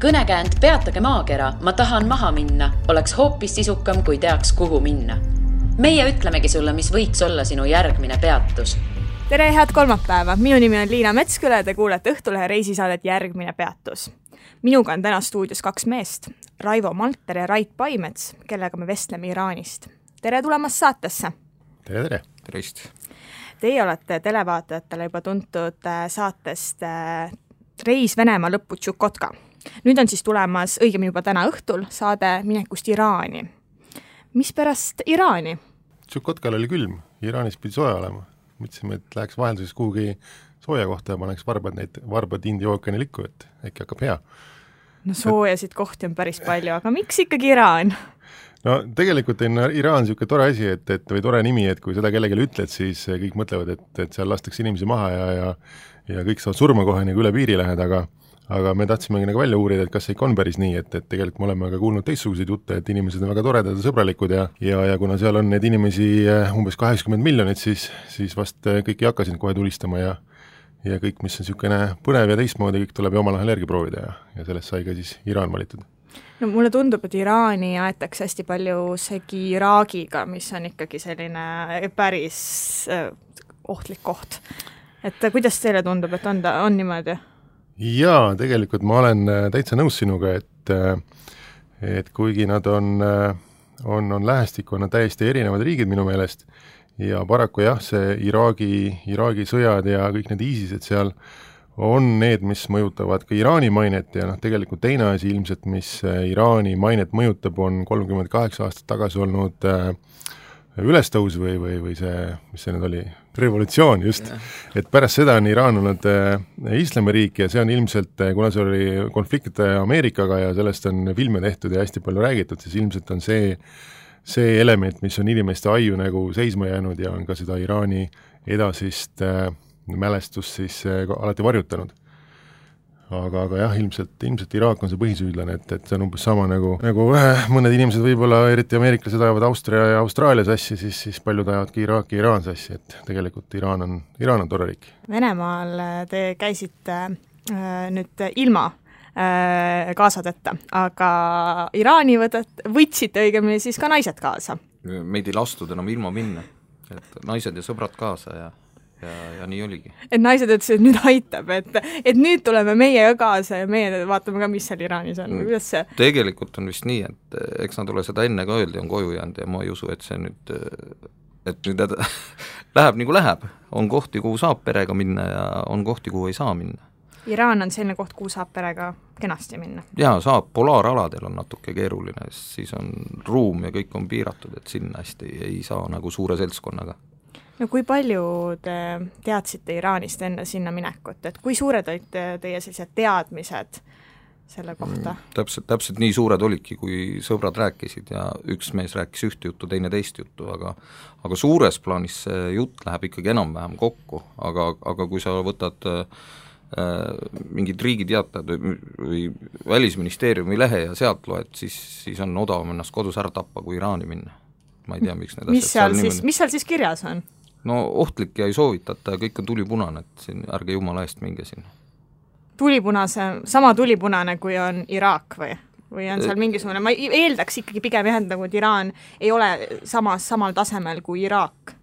Kõnekäänd Peatage maakera, ma tahan maha minna, oleks hoopis sisukam, kui teaks, kuhu minna. Meie ütlemegi sulle, mis võiks olla sinu järgmine peatus. Tere, head kolmapäeva! Minu nimi on Liina Metsküle, te kuulete Õhtulehe reisisaadet Järgmine peatus. Minuga on täna stuudios 2 meest, Raivo Malter ja Rait Paimets, kellega me vestleme Iraanist. Tere tulemast saatesse! Tere! Tervist! Teie olete televaatajatele juba tuntud saatest Reis Venemaa lõppu Tšukotka. Nüüd on siis tulemas, õigemini juba täna õhtul, saade Minekust Iraani. Mis pärast Iraani? Tšukotkal oli külm, Iraanis pidi sooja olema. Mõtlesime, et läheks vahelduses kuhugi sooja kohta ja paneks varbad India ookeani likku, et äkki hakkab hea. No soojasid kohti on päris palju, aga miks ikkagi Iraan? No tegelikult on Iraan niisugune tore asi, või tore nimi, et kui seda kellelegi ütled, siis kõik mõtlevad, et seal lastakse inimesi maha ja kõik saavad surma kohe nagu üle piiri lähed, aga me tahtsimegi nagu välja uurida, et kas see ikka on päris nii, et tegelikult me oleme ka kuulnud teistsuguseid jutte, et inimesed on väga toredad ja sõbralikud ja kuna seal on neid inimesi umbes 80 miljonit, siis vast kõik ei hakka sind kohe tulistama ja kõik, mis on niisugune põnev ja teistmoodi, kõik tuleb ju omal ahel järgi proovida ja sellest sai ka siis Iraan valitud. No mulle tundub, et Iraani aetakse hästi palju segi Iraagiga, mis on ikkagi selline päris ohtlik koht. Et kuidas teile tundub, et on niimoodi? Jaa, tegelikult ma olen täitsa nõus sinuga, et kuigi nad on lähestikku, on nad täiesti erinevad riigid minu meelest ja paraku jah, see Iraagi sõjad ja kõik need ISISed seal on need, mis mõjutavad ka Iraani mainet ja tegelikult teine asi ilmselt, mis Iraani mainet mõjutab, on 38 aastat tagasi olnud ülestõus või see, mis see nüüd oli, revolutsioon just, et pärast seda on Iraan olnud islamiriik ja see on ilmselt, kuna see oli konflikt Ameerikaga ja sellest on filme tehtud ja hästi palju räägitud, siis ilmselt on see element, mis on inimeste aju nagu seisma jäänud ja on ka seda Iraani edasist mälestust siis alati varjutanud. Aga jah, ilmselt Iraak on see põhisüüdlane, et see on umbes sama nagu mõned inimesed võib-olla, eriti ameeriklased ajavad Austria ja Austraalia sassi, siis paljud ajavadki Iraaki ja Iraan sassi, et tegelikult Iraan on tore riik. Venemaal te käisite nüüd ilma kaasadeta, aga Iraani võtsite õigemini siis ka naised kaasa. Meid ei lastud enam ilma minna, et naised ja sõbrad kaasa ja nii oligi. Et naised ütlesid, et nüüd aitab, et nüüd tuleme meie kaasa ja meie vaatame ka, mis seal Iraanis on. Kuidas see? Tegelikult on vist nii, et eks nad ole seda enne ka öeldi, on koju jäänud ja ma ei usu, et see nüüd läheb nagu läheb. On kohti, kuhu saab perega minna ja on kohti, kuhu ei saa minna. Iraan on selline koht, kuhu saab perega kenasti minna? Jaa, saab. Polaaraladel on natuke keeruline, siis on ruum ja kõik on piiratud, et sinna hästi ei saa nagu suure seltskonnaga. No kui palju te teadsite Iraanist enne sinna minekut, et kui suured olid teie sellised teadmised selle kohta? Täpselt nii suured olidki, kui sõbrad rääkisid ja üks mees rääkis ühte juttu, teine teist juttu, aga suures plaanis see jutt läheb ikkagi enam-vähem kokku, aga kui sa võtad mingid riigiteatajad või välisministeeriumi lehe ja sealt loed, siis on odavam ennast kodus ära tappa, kui Iraani minna. Ma ei tea, miks need asjad mis seal siis kirjas on? No ohtlik ja ei soovitata ja kõik on tulipunane, et siin ärge jumala eest minge sinna. Sama tulipunane, kui on Iraak või on seal mingisugune, ma eeldaks ikkagi pigem nagu, et Iraan ei ole samal tasemel kui Iraak.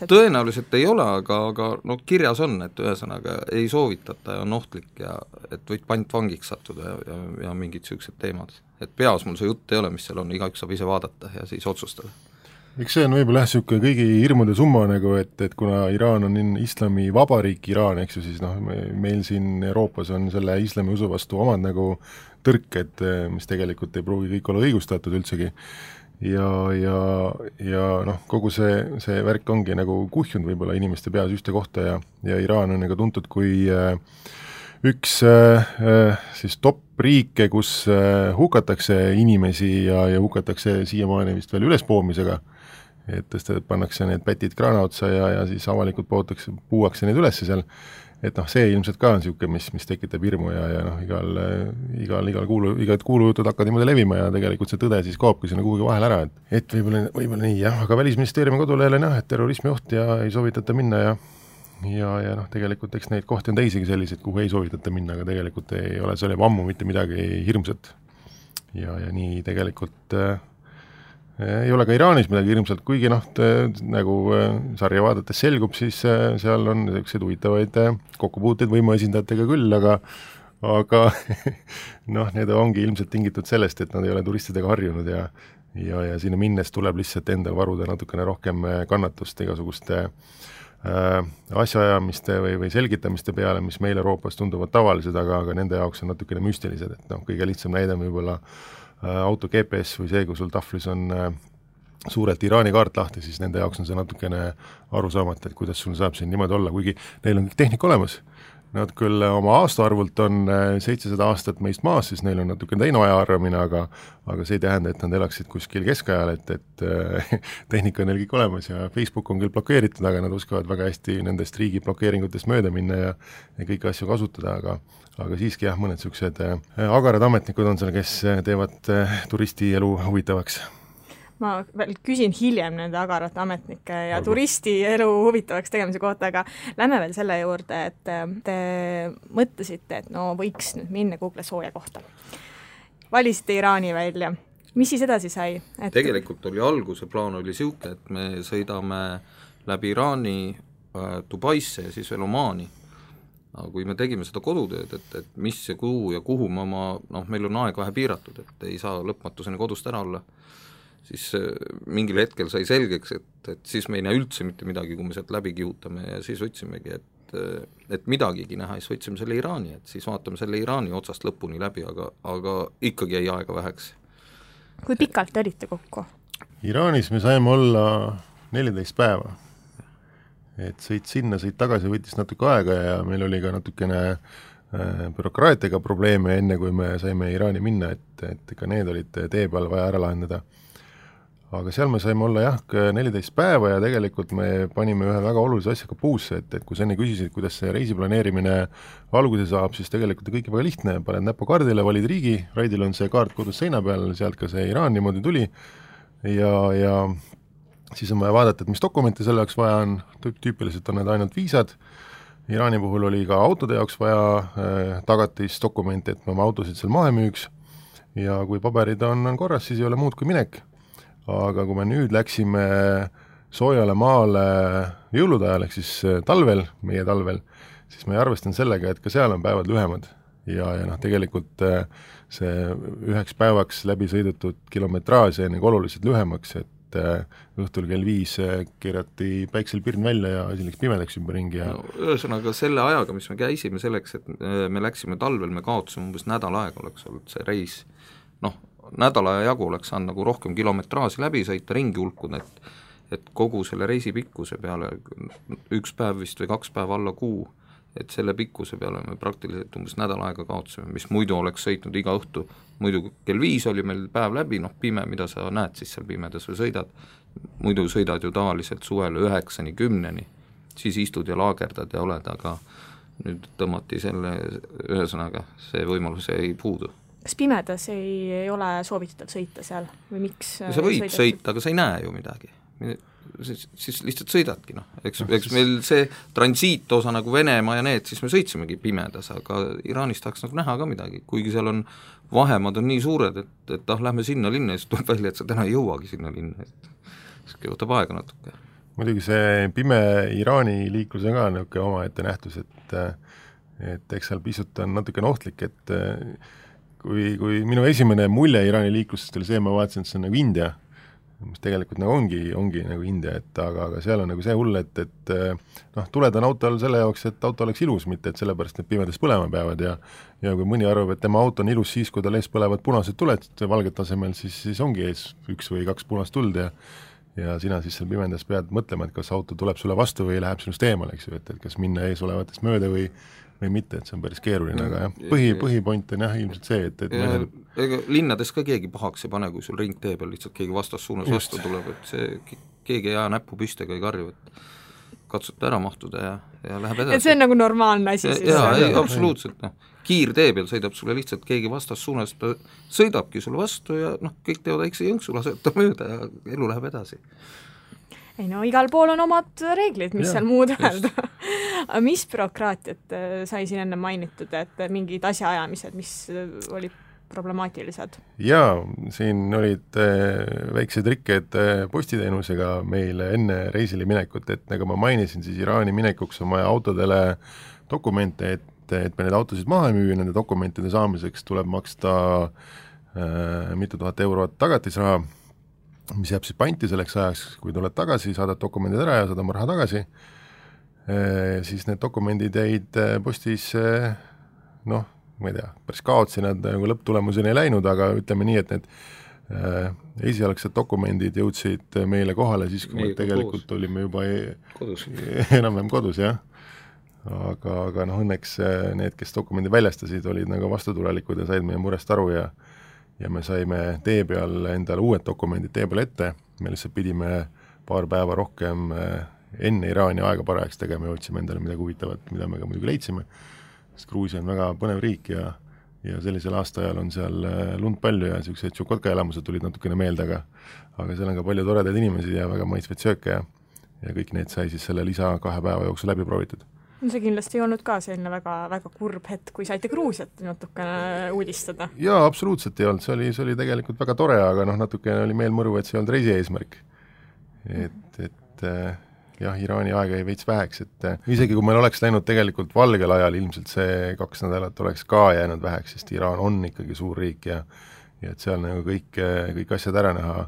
Tõenäoliselt ei ole, aga no kirjas on, et ühesõnaga ei soovitata ja on ohtlik ja et võid pantvangiks sattuda ja mingid sellised teemad. Et peas mul see jutt ei ole, mis seal on, igaüks saab ise vaadata ja siis otsustada. Eks see on võib-olla siuke kõigi hirmude summa nagu, et kuna Iraan on islami vabariik Iraan, eks ju, siis meil siin Euroopas on selle islami usu vastu omad nagu tõrked, mis tegelikult ei pruugi kõik olla õigustatud üldsegi. Ja kogu see värk ongi nagu kuhjunud võib-olla inimeste peas ühte kohta ja Iraan on nagu tuntud kui üks siis top riike, kus hukatakse inimesi ja hukatakse siiamaani vist veel ülespoomisega, et pannakse need pätid kraana otsa ja siis avalikult puuakse neid ülesse seal, et see ilmselt ka on siuke, mis tekitab hirmu ja igal kuulujutud hakkavad niimoodi levima ja tegelikult see tõde siis kaobki sinna kuhugi vahel ära, et võib-olla nii jah, aga Välisministeeriumi kodulehel on jah, et terrorismi oht ja ei soovitata minna ja noh, tegelikult eks neid kohti on teisigi selliseid, kuhu ei soovitata minna, aga tegelikult ei ole seal juba ammu mitte midagi hirmsat. Ja nii tegelikult ei ole ka Iraanis midagi hirmsalt, kuigi noh, nagu sarja vaadates selgub, siis seal on selliseid huvitavaid kokkupuuteid võimuesindajatega küll, aga noh, need ongi ilmselt tingitud sellest, et nad ei ole turistidega harjunud ja sinna minnes tuleb lihtsalt endal varuda natukene rohkem kannatust igasuguste asjaajamiste või selgitamiste peale, mis meil Euroopas tunduvad tavalised, aga nende jaoks on natukene müstilised, et noh, kõige lihtsam näide võib-olla auto GPS või see, kui sul tahvlis on suurelt Iraani kaart lahti, siis nende jaoks on see natukene arusaamata, et kuidas sul saab siin niimoodi olla, kuigi neil on kõik tehnika olemas. Nad küll oma aastaarvult on 700 aastat meist maas, siis neil on natuke teine ajaarvamine, aga see ei tähenda, et nad elaksid kuskil keskajal, et tehnika on neil kõik olemas ja Facebook on küll blokeeritud, aga nad oskavad väga hästi nendest riigi blokeeringutest mööda minna ja kõiki asju kasutada, aga siiski jah, mõned niisugused agarad ametnikud on seal, kes teevad turisti elu huvitavaks. Ma veel küsin hiljem nende agarate ametnike ja turisti elu huvitavaks tegemise kohta, aga lähme veel selle juurde, et te mõtlesite, et no võiks nüüd minna Google sooja kohta. Valisite Iraani välja. Mis siis edasi sai? Tegelikult oli alguse plaan oli siuke, et me sõidame läbi Iraani Dubaisse ja siis veel Omaani. Aga kui me tegime seda kodutööd, et mis ja kuhu me meil on aeg vähe piiratud, et ei saa lõpmatuseni kodust ära olla, siis mingil hetkel sai selgeks, et siis me ei näe üldse mitte midagi, kui me sealt läbi kihutame ja siis võtsimegi, et midagigi näha, siis võtsime selle Iraani, et siis vaatame selle Iraani otsast lõpuni läbi, aga ikkagi jäi aega väheks. Kui pikalt te olite kokku? Iraanis me saime olla 14 päeva. Et sõit sinna, sõit tagasi võttis natuke aega ja meil oli ka natukene bürokraatiaga probleeme enne, kui me saime Iraani minna, et ka need olid tee peal vaja ära lahendada. Aga seal me saime olla 14 päeva ja tegelikult me panime ühe väga olulise asjaga puusse, et kui sa enne küsisid, kuidas see reisiplaneerimine alguse saab, siis tegelikult on kõik väga lihtne, paned näppu kaardile, valid riigi, Raidil on see kaart kodus seina peal, sealt ka see Iraan niimoodi tuli ja siis on vaja vaadata, et mis dokumente selle jaoks vaja on, tüüpiliselt on need ainult viisad, Iraani puhul oli ka autode jaoks vaja tagatisdokumente, et me oma autosid seal mahe müüks ja kui paberid on korras, siis ei ole muud kui minek. Aga kui me nüüd läksime soojale maale jõulude ajal, ehk siis talvel, meie talvel, siis me arvestan sellega, et ka seal on päevad lühemad ja tegelikult see üheks päevaks läbi sõidetud kilometraaž jäi oluliselt lühemaks, et õhtul kell 5 keerati päiksel pirn välja ja asi läks pimedaks ümberringi. Ühesõnaga selle ajaga, mis me käisime selleks, et me läksime talvel, me kaotasime umbes nädal aega oleks olnud see reis, nädala jagu oleks saanud nagu rohkem kilometraasi läbi sõita, ringi hulkuda, et kogu selle reisi pikkuse peale, üks päev vist või 2 päeva alla kuu, et selle pikkuse peale me praktiliselt umbes nädal aega kaotasime, mis muidu oleks sõitnud iga õhtu, muidu kell 5 oli meil päev läbi, pime, mida sa näed siis seal pimedas või sõidad, muidu sõidad ju tavaliselt suvel 9-10, siis istud ja laagerdad ja oled, aga nüüd tõmmati selle, ühesõnaga see võimalus ei puudu. Kas pimedas ei ole soovitatud sõita seal või miks? Sa võid sõita, aga sa ei näe ju midagi. Siis lihtsalt sõidadki, eks meil see transiitosa nagu Venemaa ja need, siis me sõitsimegi pimedas, aga Iraanis tahaks nagu näha ka midagi, kuigi seal on vahemad on nii suured, et lähme sinna linna ja siis tuleb välja, et sa täna ei jõuagi sinna linna, siis võtab aega natuke. Muidugi see pime Iraani liiklus on ka niisugune omaette nähtus, et eks seal pisut on natukene ohtlik, et kui minu esimene mulje Iraani liiklusest oli see, ma vaatasin, et see on nagu India, mis tegelikult nagu ongi nagu India, aga seal on nagu see hull, et tuled on autol selle jaoks, et auto oleks ilus, mitte et sellepärast need pimedas põlema peavad ja kui mõni arvab, et tema auto on ilus siis, kui tal ees põlevad punased tuled valget tasemel, siis ongi ees 1 või 2 punast tuld ja sina siis seal pimendas pead mõtlema, et kas auto tuleb sulle vastu või läheb sinust eemale, eks ju, et kas minna ees olevatest mööda või mitte, et see on päris keeruline, aga jah, põhipoint on jah ilmselt see, et ega linnades ka keegi pahaks ei pane, kui sul ring tee peal lihtsalt keegi vastassuunas vastu tuleb, et see keegi ei jää näppu püstega ei karju, et katsute ära mahtuda ja läheb edasi. Et see on nagu normaalne asi siis? Jaa, absoluutselt, kiirtee peal sõidab sulle lihtsalt keegi vastassuunas, ta sõidabki sulle vastu ja kõik teevad väikse jõnksu, laseb ta mööda ja elu läheb edasi. ei no igal pool on omad reeglid, mis seal muud öelda. Mis bürokraatiat sai siin enne mainitud, et mingid asjaajamised, mis olid problemaatilised? Jaa, siin olid väiksed rikked postiteenusega meil enne reisile minekut, et nagu ma mainisin, siis Iraani minekuks on vaja autodele dokumente, et me need autosid maha ei müü, nende dokumentide saamiseks tuleb maksta mitu tuhat eurot tagatisraha, mis jääb siis panti selleks ajaks, kui tuled tagasi, saadad dokumendid ära ja saad oma raha tagasi, siis need dokumendid jäid postis, noh, ma ei tea, päris kaotsi nad nagu lõpptulemuseni ei läinud, aga ütleme nii, et need esialgsed dokumendid jõudsid meile kohale siis, kui me tegelikult koos. Olime juba enam-vähem kodus, jah. Aga noh, õnneks need, kes dokumendi väljastasid, olid nagu vastutulelikud ja said meie murest aru ja me saime tee peal endale uued dokumendid tee peal ette, me lihtsalt pidime paar päeva rohkem enne Iraani aega parajaks tegema ja otsime endale midagi huvitavat, mida me ka muidugi leidsime, sest Gruusia on väga põnev riik ja sellisel aastaajal on seal lund palju ja sellised Tšukotka elamused tulid natukene meelde, aga seal on ka palju toredaid inimesi ja väga maitsvaid sööke ja kõik need sai siis selle lisa 2 päeva jooksul läbi proovitud. See kindlasti ei olnud ka selline väga, väga kurb hetk, kui saite Gruusiat natukene uudistada. Jaa, absoluutselt ei olnud, see oli tegelikult väga tore, aga noh, natukene oli meel mõru, et see ei olnud reisi eesmärk. Et jah, Iraani aega ei veits väheks, et isegi kui meil oleks läinud tegelikult valgel ajal, ilmselt see 2 nädalat oleks ka jäänud väheks, sest Iraan on ikkagi suur riik ja et seal nagu kõik asjad ära näha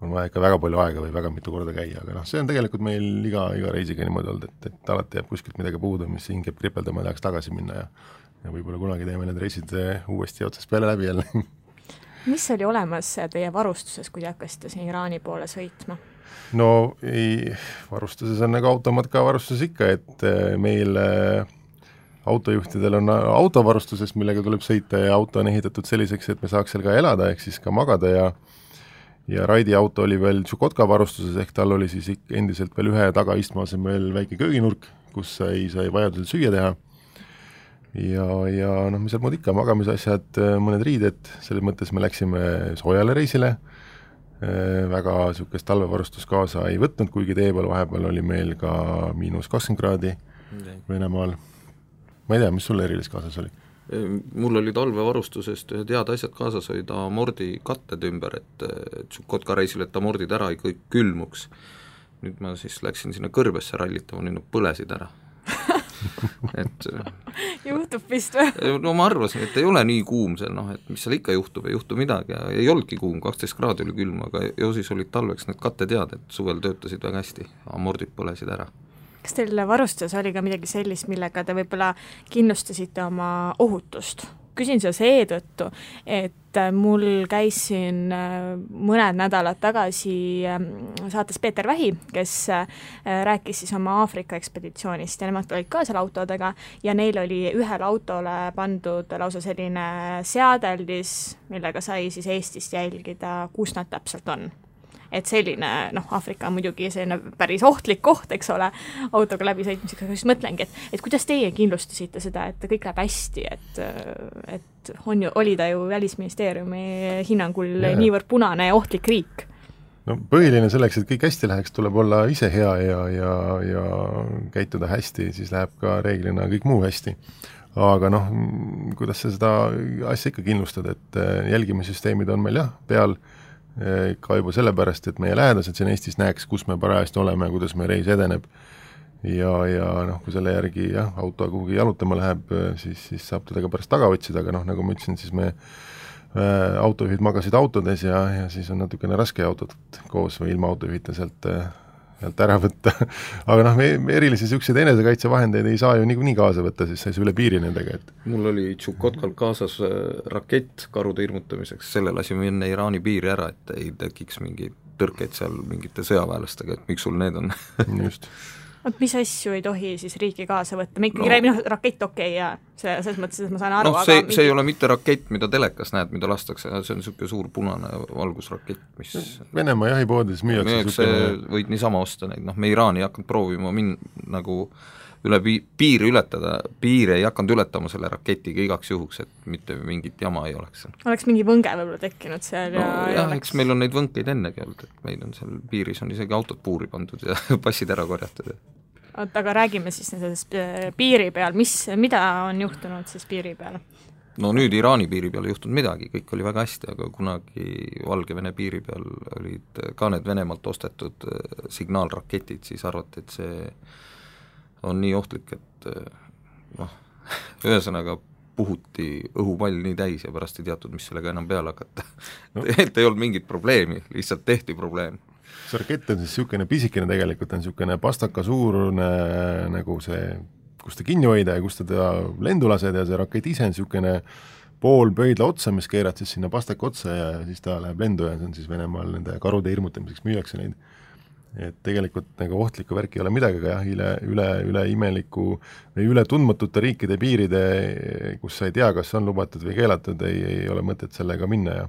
on vaja ikka väga palju aega või väga mitu korda käia, aga noh, see on tegelikult meil iga reisiga niimoodi olnud, et alati jääb kuskilt midagi puudu, mis hing jääb kripeldama ja tahaks tagasi minna ja võib-olla kunagi teeme need reisid uuesti otsast peale läbi jälle. Mis oli olemas teie varustuses, kui te hakkasite siin Iraani poole sõitma? No varustuses on nagu automatka varustuses ikka, et meil autojuhtidel on autovarustuses, millega tuleb sõita ja auto on ehitatud selliseks, et me saaks seal ka elada, ehk siis ka magada ja Raidi auto oli veel Tšukotka varustuses, ehk tal oli siis endiselt veel ühe tagaistme asemel väike kööginurk, kus sai vajadusel süüa teha ja noh, mis seal muud ikka, magamisasjad, mõned riided, selles mõttes me läksime soojale reisile, väga niisugust talvevarustust kaasa ei võtnud, kuigi tee peal vahepeal oli meil ka -20 kraadi Venemaal. Ma ei tea, mis sulle erilist kaasas oli? Mul oli talvevarustusest ühed head asjad kaasas, olid amordi katted ümber, et Tšukotka reisil, et amordid ära ei kõik külmuks. Nüüd ma siis läksin sinna kõrbesse rallitama, nüüd nad põlesid ära. Et juhtub vist või? No ma arvasin, et ei ole nii kuum seal, noh, et mis seal ikka juhtub, ei juhtu midagi ja ei olnudki kuum, 12 kraadi oli külm, aga ju siis olid talveks need katted head, et suvel töötasid väga hästi, amordid põlesid ära. Kas teil varustuses oli ka midagi sellist, millega te võib-olla kindlustasite oma ohutust? Küsin seda seetõttu, et mul käis siin mõned nädalad tagasi saates Peeter Vähi, kes rääkis siis oma Aafrika ekspeditsioonist ja nemad olid ka seal autodega ja neil oli ühele autole pandud lausa selline seadeldis, millega sai siis Eestist jälgida, kus nad täpselt on. Et selline, noh, Aafrika on muidugi selline päris ohtlik koht, eks ole, autoga läbi sõitmisega, siis mõtlengi, et kuidas teie kindlustasite seda, et kõik läheb hästi, et oli ta ju Välisministeeriumi hinnangul niivõrd punane ja ohtlik riik? No põhiline selleks, et kõik hästi läheks, tuleb olla ise hea ja käituda hästi, siis läheb ka reeglina kõik muu hästi. Aga noh, kuidas sa seda asja ikka kindlustad, et jälgimissüsteemid on meil jah, peal ka juba sellepärast, et meie lähedased siin Eestis näeks, kus me parajasti oleme, kuidas meie reis edeneb ja noh, kui selle järgi jah, auto kuhugi jalutama läheb, siis saab teda ka pärast taga otsida, aga noh, nagu ma ütlesin, siis me autojuhid magasid autodes ja siis on natukene raske autot koos või ilma autojuhita sealt ära võtta. Aga noh, me erilisi selliseid enesekaitsevahendeid ei saa ju nii kaasa võtta, siis sai üle piiri nendega. Mul oli Tšukotkal kaasas rakett karude hirmutamiseks, selle lasime enne Iraani piiri ära, et ei tekiks mingeid tõrkeid seal mingite sõjaväelastega, et miks sul need on. Just. Mis asju ei tohi siis riiki kaasa võtta? Me ikkagi räägime rakett okei ja selles mõttes, et ma saan aru, aga see ei ole mitte rakett, mida telekas näed, mida lastakse, see on niisugune suur punane valgusrakett, mis Venemaa jahipoodides müüakse võid niisama osta neid, noh, me Iraani ei hakanud proovima nagu üle piiri ületada, piiri ei hakanud ületama selle raketiga igaks juhuks, et mitte mingit jama ei oleks. Oleks mingi võnge võib-olla tekkinud seal no, ja eks meil on neid võnkeid ennegi olnud, et meil on seal piiris on isegi autod puuri pandud ja passid ära korjatud. Oot, aga räägime siis nendest piiri peal, mida on juhtunud siis piiri peal? No nüüd Iraani piiri peal ei juhtunud midagi, kõik oli väga hästi, aga kunagi Valgevene piiri peal olid ka need Venemaalt ostetud signaalraketid, siis arvati, et see on nii ohtlik, et ühesõnaga puhuti õhupall nii täis ja pärast ei teatud, mis sellega enam peale hakata. No. Et ei olnud mingit probleemi, lihtsalt tehti probleem. See rakett on siis niisugune pisikene tegelikult, on niisugune pastaka suurune nagu see, kus ta kinni hoida ja kus ta lendu lased ja see rakett ise on niisugune pool pöidla otsa, mis keerad siis sinna pastaka otsa ja siis ta läheb lendu ja see on siis Venemaal nende karude hirmutamiseks müüakse neid. Et tegelikult nagu ohtlikku värki ei ole midagi, aga jah, üle imeliku või üle tundmatute riikide piiride, kus sa ei tea, kas on lubatud või keelatud, ei ole mõtet sellega minna ja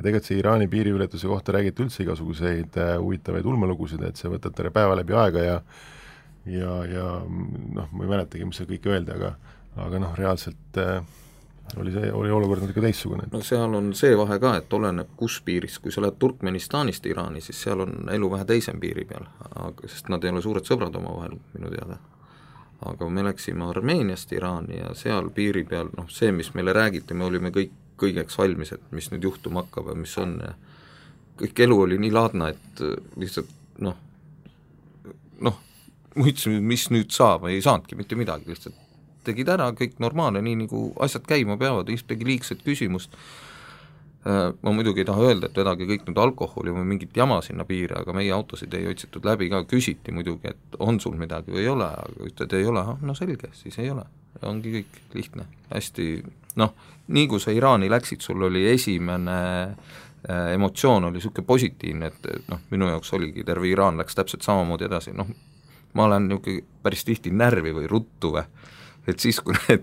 tegelikult see Iraani piiriületuse kohta räägiti üldse igasuguseid huvitavaid ulmelugusid, et see võtab terve päeva läbi aega ja noh, ma ei mäletagi, mis see kõik öeldi, aga noh, reaalselt oli olukord natuke teissugune. No seal on see vahe ka, et oleneb kus piiris, kui sa lähed Turkmenistanist Iraani, siis seal on elu vähe teisem piiri peal, sest nad ei ole suured sõbrad omavahel minu teada. Aga me läksime Armeeniast Iraani ja seal piiri peal, noh see, mis meile räägiti, me olime kõigeks valmis, et mis nüüd juhtuma hakkab ja mis on ja kõik elu oli nii laadna, et lihtsalt noh, mõtlesin, mis nüüd saab, ei saanudki mitte midagi, lihtsalt tegid ära, kõik normaalne, nii nagu asjad käima peavad, ühtegi liigset küsimust. Ma muidugi ei taha öelda, et vedagi kõik nüüd alkoholi või mingit jama sinna piire, aga meie autosid ei otsitud läbi ka, küsiti muidugi, et on sul midagi või ei ole, aga ütled ei ole, no selge, siis ei ole. Ongi kõik lihtne, hästi, noh, nii kui sa Iraani läksid, sul oli esimene emotsioon oli niisugune positiivne, et noh, minu jaoks oligi, terve Iraan läks täpselt samamoodi edasi, noh, ma olen niisugune päris tihti närvi või ruttu või, et siis, kui need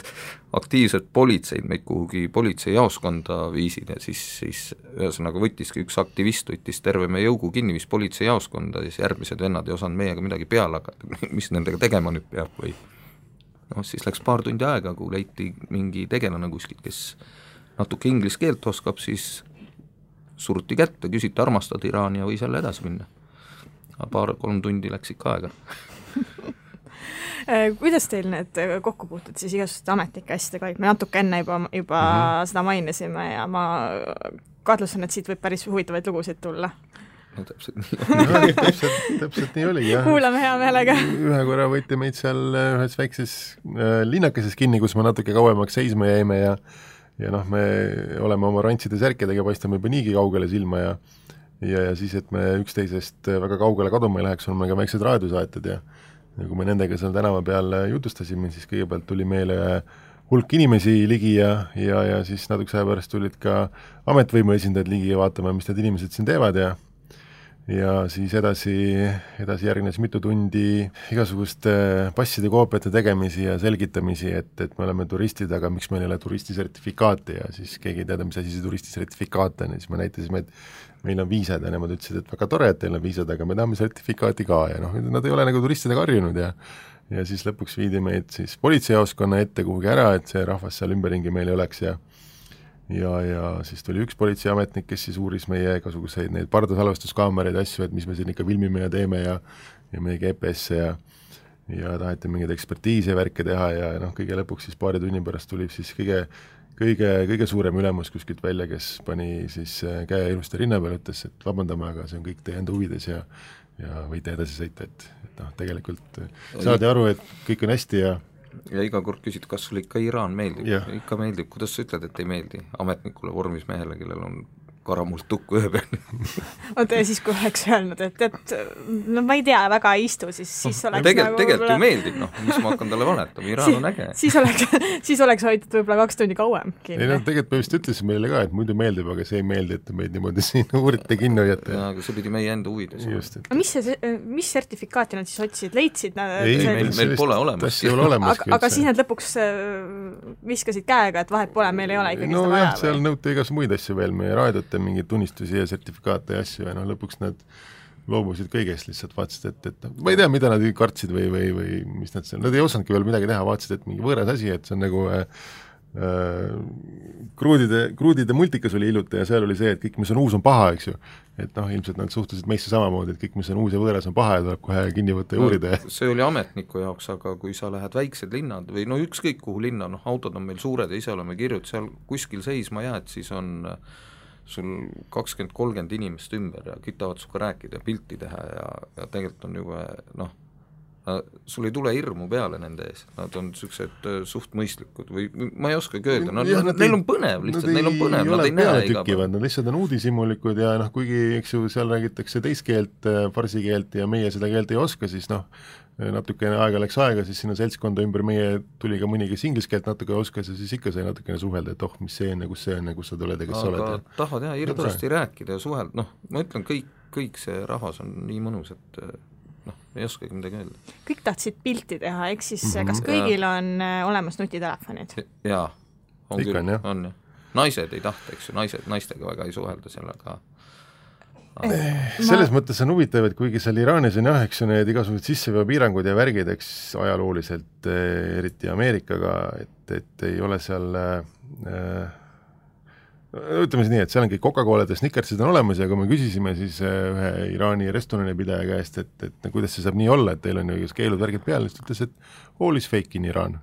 aktiivsed politseid meid kuhugi politseijaoskonda viisid ja siis ühesõnaga võttiski üks aktivist, võttis terve meie jõugu kinni, viis politseijaoskonda, siis järgmised vennad ei osanud meiega midagi peale hakata, mis nendega tegema nüüd peab või noh, siis läks paar tundi aega, kui leiti mingi tegelane kuskilt, kes natuke inglise keelt oskab, siis suruti kätte, küsiti armastad Iraani ja võis jälle edasi minna. 2-3 tundi läks ikka aega. Kuidas teil need kokkupuutud siis igasuguste ametnike asjadega olid? Me natuke enne juba seda mainisime ja ma kahtlustan, et siit võib päris huvitavaid lugusid tulla. No täpselt nii täpselt nii oligi, jah. Kuulame hea meelega. Ühe korra võeti meid seal ühes väikses linnakeses kinni, kus me natuke kauemaks seisma jäime ja noh, me oleme oma rantside särkidega, paistame juba niigi kaugele silma ja siis, et me üksteisest väga kaugele kaduma ei läheks, on meil ka väiksed raadiosaated ja kui me nendega seal tänava peal jutustasime, siis kõigepealt tuli meile hulk inimesi ligi ja siis natuke aja pärast tulid ka ametvõimu esindajad ligi ja vaatama, mis need inimesed siin teevad ja siis edasi järgnes mitu tundi igasuguste passide koopiate tegemisi ja selgitamisi, et me oleme turistid, aga miks meil ei ole turistisertifikaati ja siis keegi ei teada, mis asi see turistisertifikaat on ja siis me näitasime, et meil on viisad ja nemad ütlesid, et väga tore, et teil on viisad, aga me tahame sertifikaati ka ja noh, nad ei ole nagu turistidega harjunud ja siis lõpuks viidi meid siis politseijaoskonna ette kuhugi ära, et see rahvas seal ümberringi meil ei oleks ja siis tuli üks politseiametnik, kes siis uuris meie igasuguseid neid pardasalvestuskaameraid ja asju, et mis me siin ikka filmime ja teeme ja meie GPS-e ja taheti mingeid ekspertiise värke teha ja noh, kõige lõpuks siis paari tunni pärast tuli siis kõige suurem ülemus kuskilt välja, kes pani siis käe ilusti rinna peal, ütles, et vabandame, aga see on kõik teie enda huvides ja võite edasi sõita, et noh, tegelikult saadi aru, et kõik on hästi ja iga kord küsid, kas sulle ikka Iraan meeldib, ikka meeldib, kuidas sa ütled, et ei meeldi ametnikule vormis mehele, kellel on karamult tukku ühe peal. Oota, ja siis kui oleks öelnud, et no ma ei tea, väga ei istu, siis oleks tegelikult ju meeldib, noh, mis ma hakkan talle valetama, Iraan on äge. Siis oleks hoitud võib-olla 2 tundi kauem kinni. Ei, no tegelikult me vist ütlesime meile ka, et muidu meeldib, aga see ei meeldi, et meid niimoodi siin uurite kinno jätta. Ja, aga see pidi meie enda huvides. Mis sertifikaati nad siis otsisid? Leidsid? Meil pole olemas. Aga siis nad lõpuks viskasid käega, et vahet pole, meil ei ole ikkagi seda vaja. Seal nõuti igas muid asju veel, meie raadiote mingeid tunnistusi ja sertifikaate ja asju ja noh, lõpuks nad loobusid kõigest lihtsalt, vaatasid, et ma ei tea, mida nad kartsid või mis nad ei osanudki veel midagi teha, vaatasid, et mingi võõras asi, et see on nagu kruudide multikas oli hiljuti ja seal oli see, et kõik, mis on uus, on paha, eks ju. Et noh, ilmselt nad suhtusid meisse samamoodi, et kõik, mis on uus ja võõras, on paha ja tuleb kohe kinni võtta ja uurida. See oli ametniku jaoks, aga kui sa lähed väiksed linnad või no ükskõik kuhu linna, noh autod on meil suured ja ise oleme kirjud, seal kuskil seisma jääd, siis on sul 20-30 inimest ümber ja kütavad suga rääkida ja pilti teha ja tegelikult on juba noh, sul ei tule hirmu peale nende ees, nad on niisugused suht mõistlikud või ma ei oskagi öelda, neil on põnev lihtsalt, neil on põnev, nad ei näe iga päev. Nad lihtsalt on uudishimulikud ja noh, kuigi eks ju seal räägitakse teist keelt, farsi keelt ja meie seda keelt ei oska, siis noh, natukene aega läks aega, siis sinna seltskonda ümber meie tuli ka mõni, kes inglise keelt natuke oskas ja siis ikka sai natukene suhelda, et mis see on ja kus sa tuled ja kes sa oled. Aga tahad jah hirmsasti rääkida ja suhelda, noh, ma ütlen, kõik see rahvas on nii mõnus, et ei oskagi midagi öelda. Kõik tahtsid pilti teha, eks siis kas kõigil on olemas nutitelefonid? Jaa, on ikka küll, on jah. Naised ei tahta, eks ju, naistega väga ei suhelda sellega. Selles mõttes on huvitav, et kuigi seal Iraanis on jah, eks ju need igasugused sisseveopiirangud ja värgid, eks ajalooliselt, eriti Ameerikaga, et ei ole seal ütleme siis nii, et seal on kõik Coca-Colad ja Snickersid on olemas ja kui me küsisime siis ühe Iraani restorani pidaja käest, et kuidas see saab nii olla, et teil on ju keelud värgid peal, siis ütles, et all is fake in Iraan.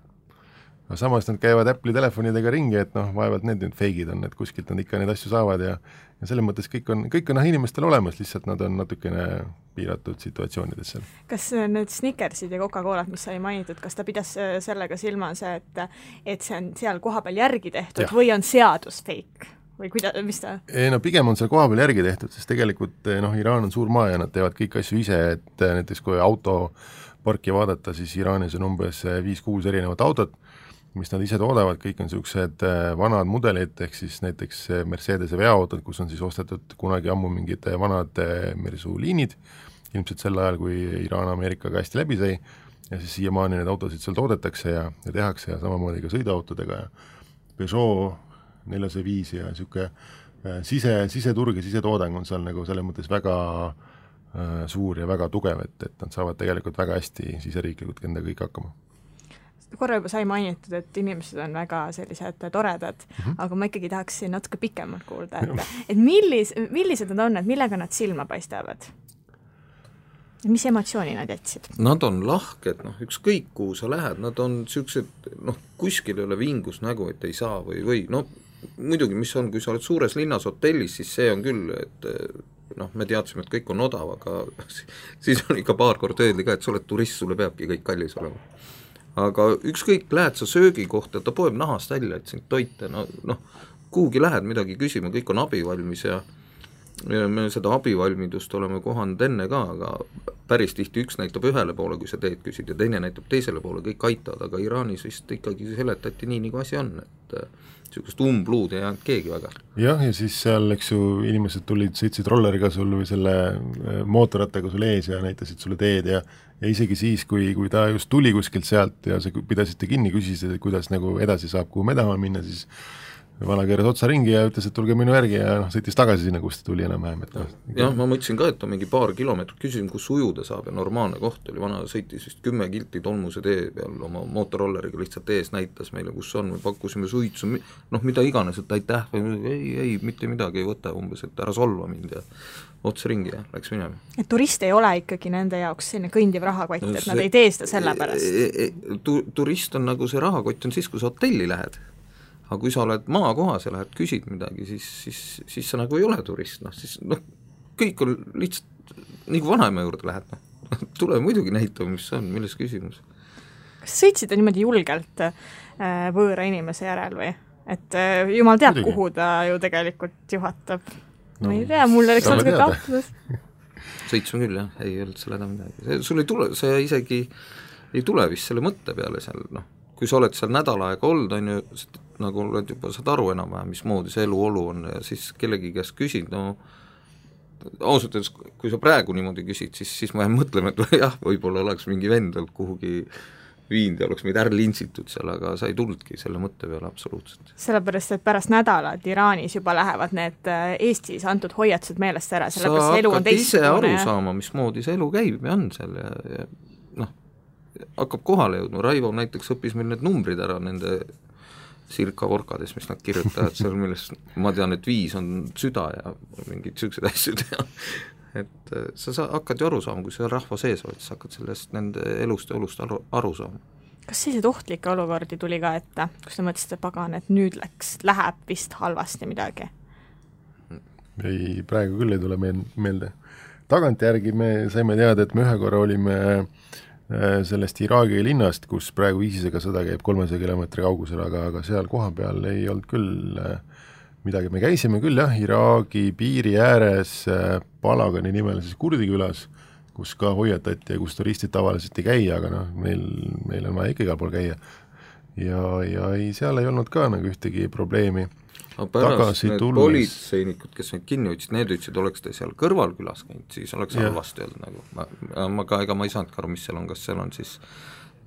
Aga samas nad käivad Apple'i telefonidega ringi, et noh, vaevalt need feigid on, et kuskilt nad ikka neid asju saavad ja selles mõttes kõik on inimestel olemas, lihtsalt nad on natukene piiratud situatsioonides seal. Kas need Snickersid ja Coca-Colad, mis sai mainitud, kas ta pidas sellega silmas, et see on seal kohapeal järgi tehtud või on seadus fake? Või mis ta? No pigem on seal kohapeal järgi tehtud, sest tegelikult Iraan on suur maa ja nad teevad kõik asju ise, et näiteks kui autoparki vaadata, siis Iraanis on umbes 5-6 erinevat autot, mis nad ise toodavad, kõik on niisugused vanad mudelid, ehk siis näiteks Mercedese veoautod, kus on siis ostetud kunagi ammu mingid vanad mersuliinid, ilmselt sel ajal, kui Iraan Ameerikaga hästi läbi sai, ja siis siiamaani need autosid seal toodetakse ja tehakse ja samamoodi ka sõiduautodega ja Peugeot 405 ja niisugune siseturg ja sisetoodang on seal nagu selles mõttes väga suur ja väga tugev, et nad saavad tegelikult väga hästi siseriiklikult endaga kõik hakkama. Korra juba sai mainitud, et inimesed on väga sellised toredad, aga ma ikkagi tahaksin natuke pikemalt kuulda, et millised nad on, et millega nad silma paistavad? Mis emotsiooni nad jätsid? Nad on lahked, ükskõik kuhu sa lähed, nad on niisugused, kuskil ei ole vingus nägu, et ei saa või muidugi, mis on, kui sa oled suures linnas hotellis, siis see on küll, et me teadsime, et kõik on odav, aga siis on ikka paar kord öeldi ka, et sa oled turist, sulle peabki kõik kallis olema. Aga ükskõik, lähed sa söögi kohta, ta poeb nahast välja, et sind toita, kuhugi lähed midagi küsima, kõik on abivalmis ja me seda abivalmidust oleme kohanud enne ka, aga päris tihti üks näitab ühele poole, kui sa teed küsid, ja teine näitab teisele poole, kõik aitavad, aga Iraanis vist ikkagi seletati nii, nagu asi on, et niisugust umbluud ei jäänud keegi väga. Jah, ja siis seal, eks ju, inimesed sõitsid rolleriga sul või selle mootorrattaga sul ees ja näitasid sulle teed ja isegi siis, kui ta just tuli kuskilt sealt ja sa pidasite kinni, küsisid, et kuidas nagu edasi saab, kuhu me tahame minna, siis vana keeras otsa ringi ja ütles, et tulge minu järgi ja sõitis tagasi sinna, kus ta tuli enam-vähem. Jah, ma mõtlesin ka, et on mingi paar kilomeetrit, küsisin, kus ujuda saab ja normaalne koht oli, vana sõitis vist 10 kilti tolmuse tee peal oma mootorrolleriga lihtsalt ees näitas meile, kus on, me pakkusime suitsu, mida iganes, et aitäh, ei, mitte midagi ei võta umbes, et ära solva mind ja otsa ringi ja läks minema. Et turist ei ole ikkagi nende jaoks selline kõndiv rahakott, et nad ei tee seda selle pärast? Turist on nagu see rahakott on siis, kui sa hotelli lähed. Aga kui sa oled maakohas ja lähed küsid midagi, siis sa nagu ei ole turist, siis kõik on lihtsalt, nii kui vanaema juurde lähed, tule muidugi näitama, mis on, milles küsimus. Kas sõitsite niimoodi julgelt võõra inimese järel või? Et jumal teab, kuhu ta ju tegelikult juhatab. Ma ei tea, mul oleks natuke kahtlus. Sõitsime küll, jah, ei olnud selle midagi. Sul ei tule, see isegi ei tule vist selle mõtte peale seal, kui sa oled seal nädal aega olnud, on ju, nagu oled juba saad aru enam-vähem, mismoodi see eluolu on ja siis kellegi käest küsid, ausalt öeldes, kui sa praegu niimoodi küsid, siis ma mõtleme, et jah, võib-olla oleks mingi vend kuhugi viinud ja oleks meid lintsitud seal, aga sa ei tulnudki selle mõtte peale absoluutselt. Sellepärast, et pärast nädalat Iraanis juba lähevad need Eestis antud hoiatused meelest ära, sellepärast sa elu on hakkad ise aru ja... saama, mismoodi see elu käib ja on seal ja noh, hakkab kohale jõudma, Raivo näiteks õppis meil need numbrid ära nende sirka vorkades, mis nad kirjutavad seal, millest ma tean, et 5 on süda ja mingid sellised asjad ja et sa hakkad ju aru saama, kui sa rahva sees oled, siis hakkad sellest nende elust ja olust aru saama. Kas selliseid ohtlikke olukordi tuli ka ette, kus te mõtlesite, pagan, et nüüd läheb vist halvasti midagi? Ei, praegu küll ei tule meelde. Tagantjärgi me saime teada, et me ühe korra olime sellest Iraagi linnast, kus praegu ISISega sõda käib 300 kilomeetri kaugusel, aga seal koha peal ei olnud küll midagi. Me käisime küll jah, Iraagi piiri ääres Palagani nimelises kurdi külas, kus ka hoiatati ja kus turistid tavaliselt ei käi, aga noh, meil on vaja ikka igal pool käia. Ja ei, seal ei olnud ka nagu ühtegi probleemi. Aga pärast need politseinikud, kes neid kinni ütlesid, need ütlesid, oleks te seal kõrvalkülas käinud, siis oleks halvasti olnud nagu. Ega ma ei saanud aru, mis seal on, kas seal on siis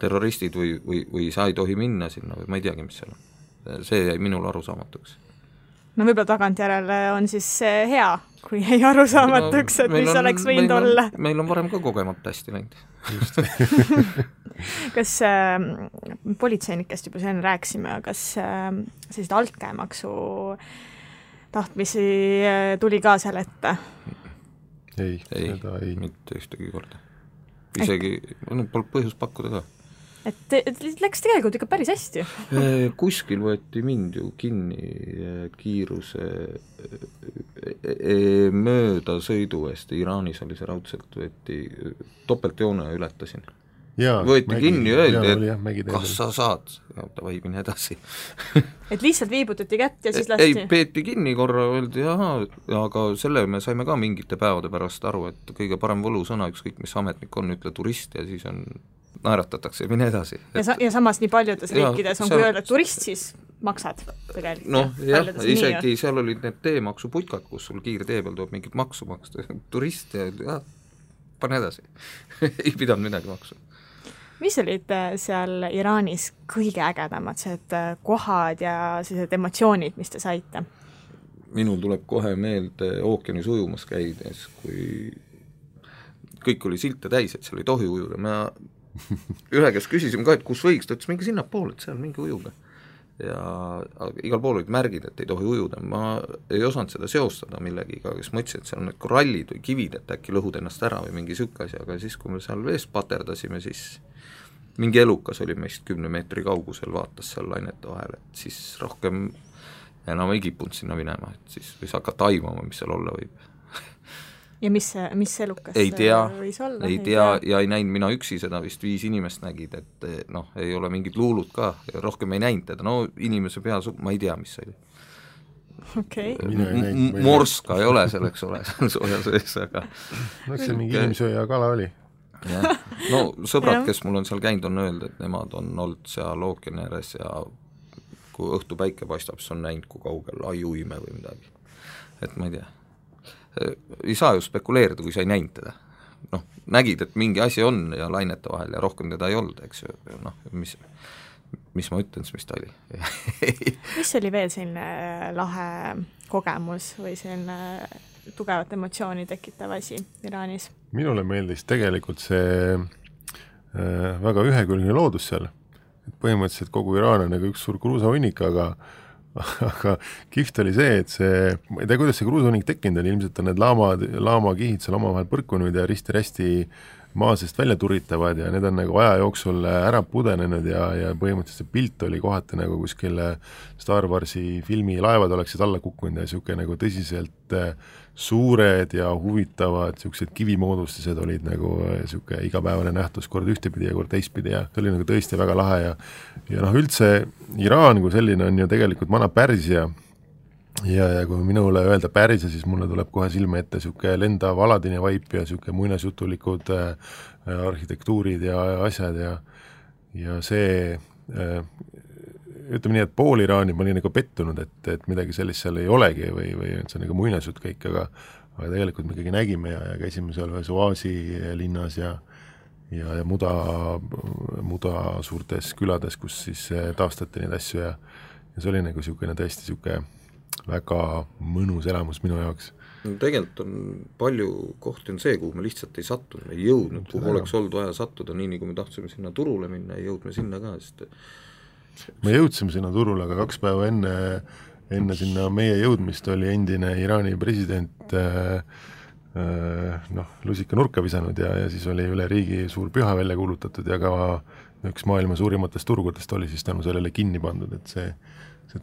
terroristid või sa ei tohi minna sinna või ma ei teagi, mis seal on. See jäi minul arusaamatuks. No võib-olla tagantjärele on siis hea, kui ei arusaamatuks, et mis oleks võinud olla. Meil on varem ka kogemata hästi läinud. Kas politseinikest juba sen rääksime, kas sellised altkäemaksu tahtmisi tuli ka seal ette? Ei, seda ei. Mitte ühtegi korda. Isegi polnud põhjus pakkuda ka. Et läks tegelikult ikka päris hästi. Kuskil võeti mind ju kinni kiiruse mööda sõidu eest, Iraanis oli see raudselt, võeti topeltjoone ületasin. Võeti kinni ja öeldi, et kas sa saad, davai, mine edasi. Et lihtsalt viibutati kätt ja siis lasti? Ei, peeti kinni korra, öeldi, aga selle me saime ka mingite päevade pärast aru, et kõige parem võlusõna, ükskõik mis ametnik on, ütle turist ja siis on naeratatakse ja mine edasi. Ja samas nii paljudes riikides on, kui öelda turist, siis maksad tegelikult. Noh, jah, isegi seal olid need teemaksuputkad, kus sul kiirtee peal tuleb mingit maksu maksta. Turist ja pane edasi. Ei pidanud midagi maksu. Mis olid seal Iraanis kõige ägedamad, kohad ja sellised emotsioonid, mis te saite? Minul tuleb kohe meelde ookeanis ujumas käides, kui kõik oli silte täis, et seal ei tohi ujuda. Me ühe kes küsisime ka, et kus võiks, ta ütles, mingi sinna pool, et seal mingi ujuga. Ja igal pool olid märgid, et ei tohi ujuda. Ma ei osanud seda seostada millegiga, kes ma ütlesin, et seal on need korallid või kivid, et äkki lõhud ennast ära või mingi sükkas, aga siis, kui me seal veest paterdasime, siis mingi elukas oli meist 10 meetri kaugusel, vaatas seal lainete vahel, et siis rohkem enam ei kipunud sinna minema, et siis võis hakata aimama, mis seal olla võib. Ja mis elukas võis olla? Ei tea ja ei näinud mina üksi seda, vist 5 inimest nägid, et noh, ei ole mingid luulud ka, rohkem ei näinud teda, no inimese pea, ma ei tea, mis see oli. Okay. Morska ei ole selleks ole, sooja sees, aga no see mingi inimsööja kala oli. Ja. No sõbrad, kes mul on seal käinud, on öelnud, et nemad on olnud seal ookeani ääres ja kui õhtu päike paistab, siis on näinud, kui kaugel ajuime või midagi, et ma ei tea. Ei saa ju spekuleerida, kui sa ei näinud teda. Noh, nägid, et mingi asi on ja lainete vahel ja rohkem teda ei olnud, eks ju, noh, mis ma ütlen, mis ta oli. Mis oli veel selline lahe kogemus või selline tugevat emotsiooni tekitav asi Iraanis? Minule meeldis tegelikult see väga ühekülgne loodus seal. Põhimõtteliselt kogu Iraan on nagu üks suur kruusahunnik, aga kihvt oli see, et ma ei tea, kuidas see kruusahunnik tekkinud on, ilmselt on need laamakihid seal omavahel põrkunud ja risti-rästi maa seest välja turitavad ja need on nagu aja jooksul ära pudenenud ja põhimõtteliselt see pilt oli kohati nagu kuskil Star Warsi filmi laevad oleksid alla kukkunud ja siuke nagu tõsiselt suured ja huvitavad siuksed kivimoodustised olid nagu siuke igapäevane nähtus kord ühtepidi ja kord teistpidi ja see oli nagu tõesti väga lahe ja noh, üldse Iraan kui selline on ju tegelikult vana Pärsia ja kui minule öelda Pärsia, siis mulle tuleb kohe silme ette siuke lendav Aladini vaip ja siuke muinasjutulikud arhitektuurid ja asjad ja see ütleme nii, et pool Iraani ma olin nagu pettunud, et midagi sellist seal ei olegi või et see on nagu muinasjutt kõik, aga tegelikult me ikkagi nägime ja käisime seal ühes oaasi linnas ja ja muda suurtes külades, kus siis taastati neid asju ja see oli nagu niisugune tõesti niisugune väga mõnus elamus minu jaoks. No, tegelikult on palju kohti on see, kuhu me lihtsalt ei sattunud, me ei jõudnud, kuhu oleks olnud vaja sattuda, nii nagu me tahtsime sinna turule minna, ei jõudme sinna ka, sest me jõudsime sinna turule, aga 2 päeva enne sinna meie jõudmist oli endine Iraani president lusika nurka visanud ja siis oli üle riigi suur püha välja kuulutatud ja ka üks maailma suurimatest turgudest oli siis tänu sellele kinni pandud, et see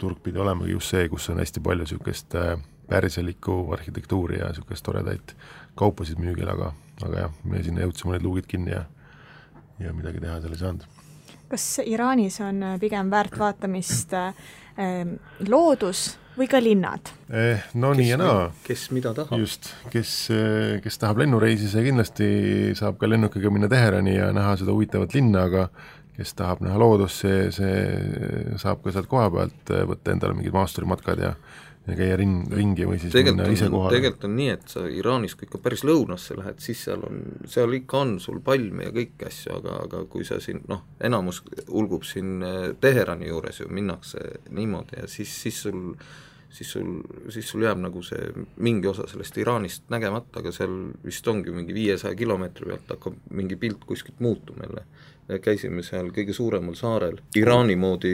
turg pidi olemagi just see, kus on hästi palju niisugust pärselikku arhitektuuri ja niisugust toredaid kaupasid müügil, aga jah, me sinna jõudsime need luugid kinni ja midagi teha seal ei saanud. Kas Iraanis on pigem väärt vaatamist loodus või ka linnad? No nii ja naa. Kes mida tahab? Just, kes tahab lennureisi, see kindlasti saab ka lennukiga minna Teherani ja näha seda huvitavat linna, aga kes tahab näha loodust, see saab ka sealt koha pealt võtta endale mingid maasturimatkad ja käia ringi või siis minna ise kohale. Tegelikult on nii, et sa Iraanis, kui ikka päris lõunasse lähed, siis seal ikka on sul palme ja kõik asju, aga kui sa siin, enamus ulgub siin Teherani juures ju, minnakse niimoodi ja siis sul jääb nagu see mingi osa sellest Iraanist nägemata, aga seal vist ongi mingi 500 kilomeetri pealt hakkab mingi pilt kuskilt muutuma jälle. Käisime seal kõige suuremal saarel Iraani moodi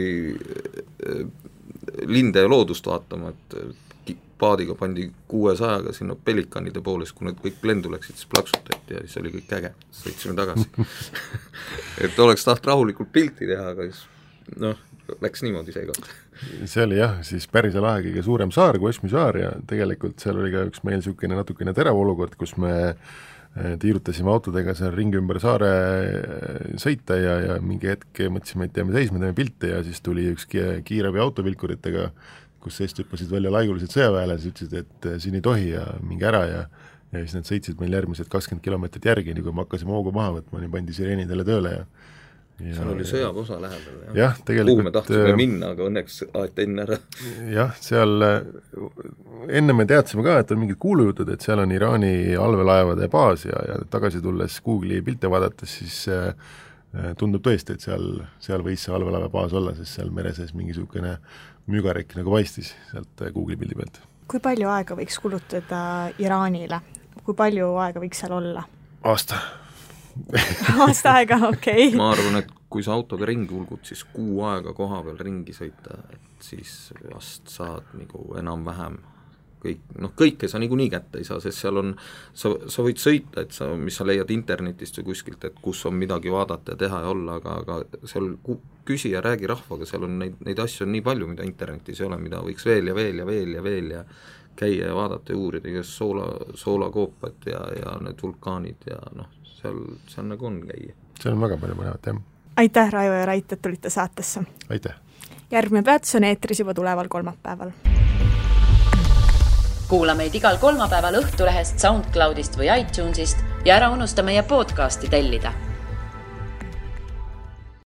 linde ja loodust vaatama, et paadiga pandi 600-ga sinna pelikanide poole, kui need kõik lendu läksid, siis plaksutati ja siis oli kõik äge, sõitsime tagasi. Et oleks taht rahulikult pilti teha, aga siis läks niimoodi seekord. See oli jah, siis Pärsia lahe kõige suurem saar kui Osmi saar ja tegelikult seal oli ka üks meil niisugune natukene terav olukord, kus me tiirutasime autodega seal ringi ümber saare sõita ja mingi hetk mõtlesime, et jääme seisma, teeme pilte ja siis tuli üks kiirabi autovilkuritega, kus seest hüppasid välja laigulised sõjaväelased, ütlesid, et siin ei tohi ja mingi ära ja siis nad sõitsid meil järgmised 20 kilomeetrit järgi, nii kui me hakkasime hoogu maha võtma, nii pandi sireenidele tööle ja seal oli sõjaväeosa lähedal. Jah, tegelikult kuhu me tahtsime minna, aga õnneks aeti enne ära. Jah, seal enne me teadsime ka, et on mingid kuulujutud, et seal on Iraani allveelaevade baas ja tagasi tulles Google'i pilte vaadates, siis tundub tõesti, et seal võis see allveelaeva baas olla, sest seal mere sees mingisugune mügarekk nagu paistis sealt Google'i pildi pealt. Kui palju aega võiks kulutada Iraanile? Kui palju aega võiks seal olla? Aasta aega, okei. Ma arvan, et kui sa autoga ringi ulgud, siis 6 aega koha peal ringi sõita, et siis vast saad nagu enam-vähem kõike sa niikuinii kätte ei saa, sest seal on, sa võid sõita, et mis sa leiad internetist või kuskilt, et kus on midagi vaadata ja teha ja olla, aga seal küsi ja räägi rahvaga, seal on neid asju on nii palju, mida internetis ei ole, mida võiks veel ja käia ja vaadata ja uurida, kes soolakoopat ja need vulkaanid ja seal nagu on käia. Seal on väga palju mõnevat, jah. Aitäh, Raivo ja Rait, et tulite saatesse. Aitäh. Järgmine peatus on eetris juba tuleval kolmapäeval. Kuula meid igal kolmapäeval Õhtulehest, SoundCloudist või iTunesist ja ära unusta meie podcasti tellida.